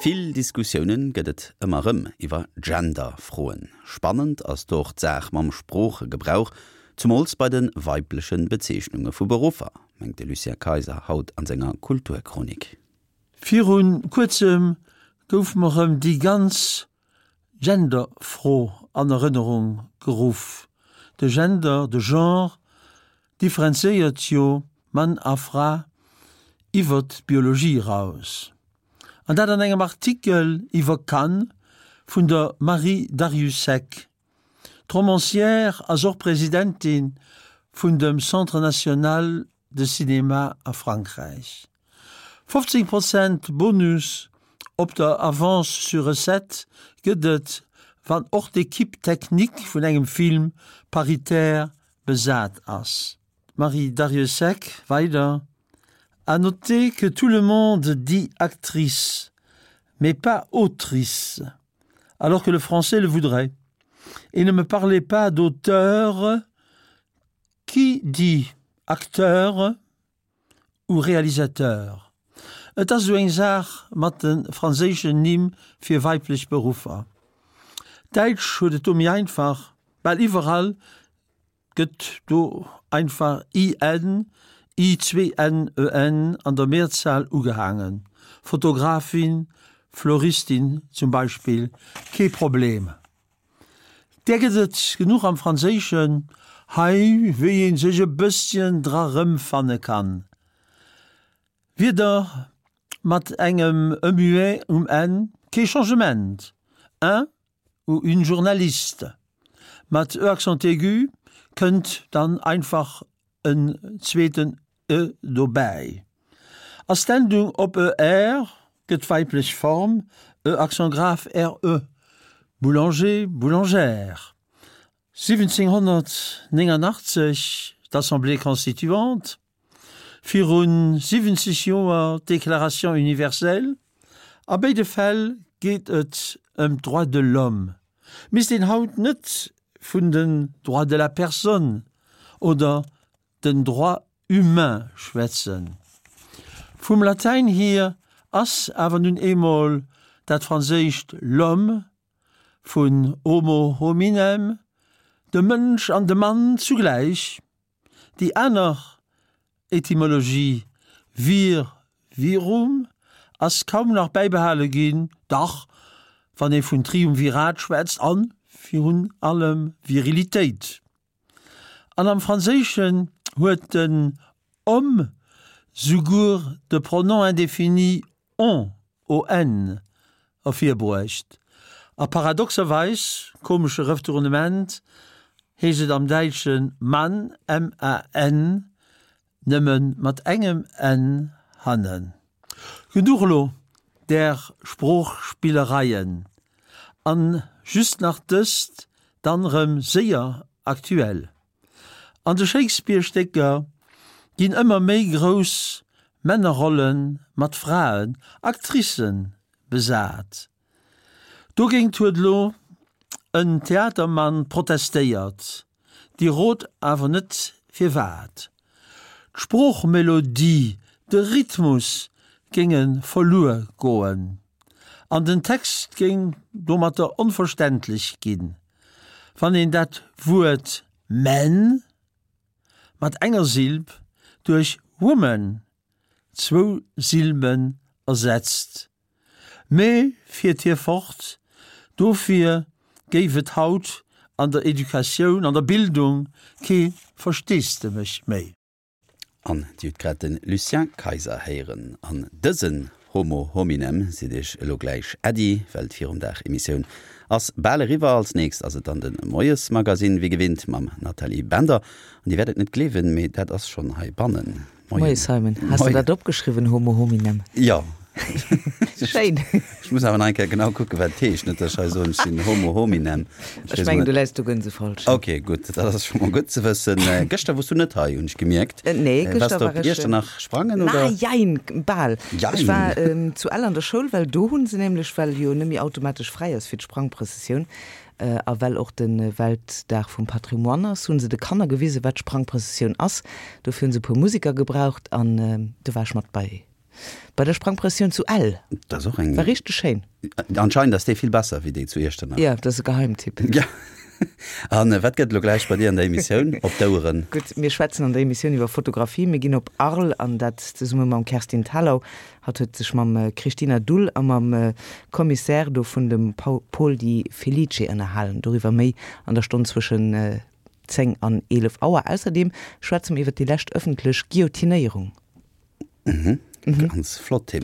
Vill Diskussiounen gëtt et ëmmer rëm iwwer Gender-Froen. Spannend ass do och d'Saach mam Sproochegebrauch, zumools bei de weibleche Bezeechnunge vu Beruffer, mengt de Lucien Kayser haut an senger Kulturchronik. Viru kuerzem gouf mer rëm déi ganz Gender-Fro an Erënnerung geruff. De Gender, de Genre, differenzéiert jo Mann a Fra iwwert d'Biologie eraus. An dat an engem Artikel iwwer Cannes vun der Marie Darrieussecq. D'Romancière ass och Presidentin vun dem Centre national de cinéma a Frankräich. 15 Prozent Bonus op der Avance sur recettes gëtt et, wann och d'Equipe technique vun engem Film paritaire besat ass. D'Marie Darrieussecq weider, À noter que tout le monde dit actrice, mais pas autrice, alors que le français le voudrait. Et ne me parlez pas d'auteur, qui dit acteur ou réalisateur? Et ass esou eng Saach mat de franséischen Nimm fir weiblech Beruffer. D'Däitsch huet et do méi einfach, bal iwwerall Gëtt do einfach IN, I-N-N-E-N an der Mehrzahl ugehaangen, Fotografin, Floristin zum Beispill, kee Problem. Där gëtt et genuch am Franséischen hei, wéi ee sech e bësschen dra rëmfanne kann. Wierder mat engem e muet um Enn, kee Changement, un ou une journaliste. Mat e accent aigu kënnt dann einfach en zweeten e dobäi. Ass d'Endung op er, gëtt d'weiblech Form e accent grave re, boulanger, boulangère. 1789 d'Assemblée constituante. Virun 70 Joer d'Déclaration universelle, a béide Fäll geet et ëm d'Droits de l'homme. Misst een haut net vun den Droits de la personne oder den Droits humains schwätzen? Vum Latäin hier ass awer nun eemol dat franséischt l'homme vun homo hominem, de Mënsch an de Mann zugläich. Déi aner Etymologie vir, virum ass kaum nach bäibehale ginn, dach wann ee vun Triumvirat schwätzt a virun allem Virilitéit. An am Franséischen huet den homme souguer de Pronom indéfini on, o-n, ervirbruecht. A paradoxerweis, komesche Retournement, heescht et am Däitsche Mann, M-A-N, nëmme mat engem n hannen. Genuch elo där Sproochspillereien. An just nach dëst, dann rëm séier aktuell. An de Shakespeare-Stécker ginn ëmmer méi grouss Männerrolle mat Fraen, Actricen, besat. Dogéint huet elo en Theatermann protestéiert, Dir rot awer net firwat. D'Sproochmelodie, de Rhythmus géinge verluer goen an den Text géing domatter onverständlech ginn. Wann een dat Wuert men mat enger Silb duerch woman, zwou Silben, ersetzt. Mee, fiert hie fort, dofir géif et haut an der Educatioun, an der Bildung kee Versteesdemech méi. An Dir hutt grad de Lucien Kayser héieren. An dësen Homo hominem seet Iech elo gläich Äddi, well d'Virumdag-Emissioun ass bal eriwwer. Als nächst ass et dann de Moiesmagasinn, wéi gewinnt mam Nathalie Bender. An Dir wäert et net gleewen, mee dat ass schonn heibannen. Moien. Moie Simon. Has de dat opgeschriwwen, Homo hominem? Jo. Schéin. Ech muss awer nach eng Kéier genau kucken, wat et heescht. Net, datt ech hei soen, ech sinn Homo hominem. Ech mengen, du läis do gënsefalsch. Ok, gutt, dat ass scho mol gutt ze wëssen. Gëschter wors du net hei, hunn ech gemierkt. Nee, gëschter war ech. Waars du op Iechternach sprangen, oder? Na, jein, bal. Jein. Ech war zu Ell an der Schoul, well do hu se nämlech, well jo net méi automatesch fräi ass fir d'Sprangprëssessioun, A well och de Weltdag vum Patrimoine ass, hu se de Kanner gewisen, wat d'Sprangprëssessioun ass. Dofir hu se e puer Museker gebraucht an do war ech mat bei. Bei der Sprangprëssioun zu Ell. Dat ass och eng. War richteg schéin. Anscheinend ass déi vill besser wéi déi zu Iechternach. Jo, dat ass e Geheimtipp. Ja. An wat gëtt elo gläich bei dir an der Emissioun op d'Oueren? Gutt, mir schwätzen an der Emissioun iwwer Fotografie. Mir ginn op Arles an dat zesumme mam Kerstin Thalau. Hatt huet sech mam Christina Dull a mam Commissaire do vun dem Paul Di Felice ënnerhalen. Doriwwer méi an der Stonn zwëschen 10 an 11 Auer. Ausserdeem schwätze mer iwwer déi lescht ëffentlech Guillotinéierung. Mhm. Ganz flott Thema.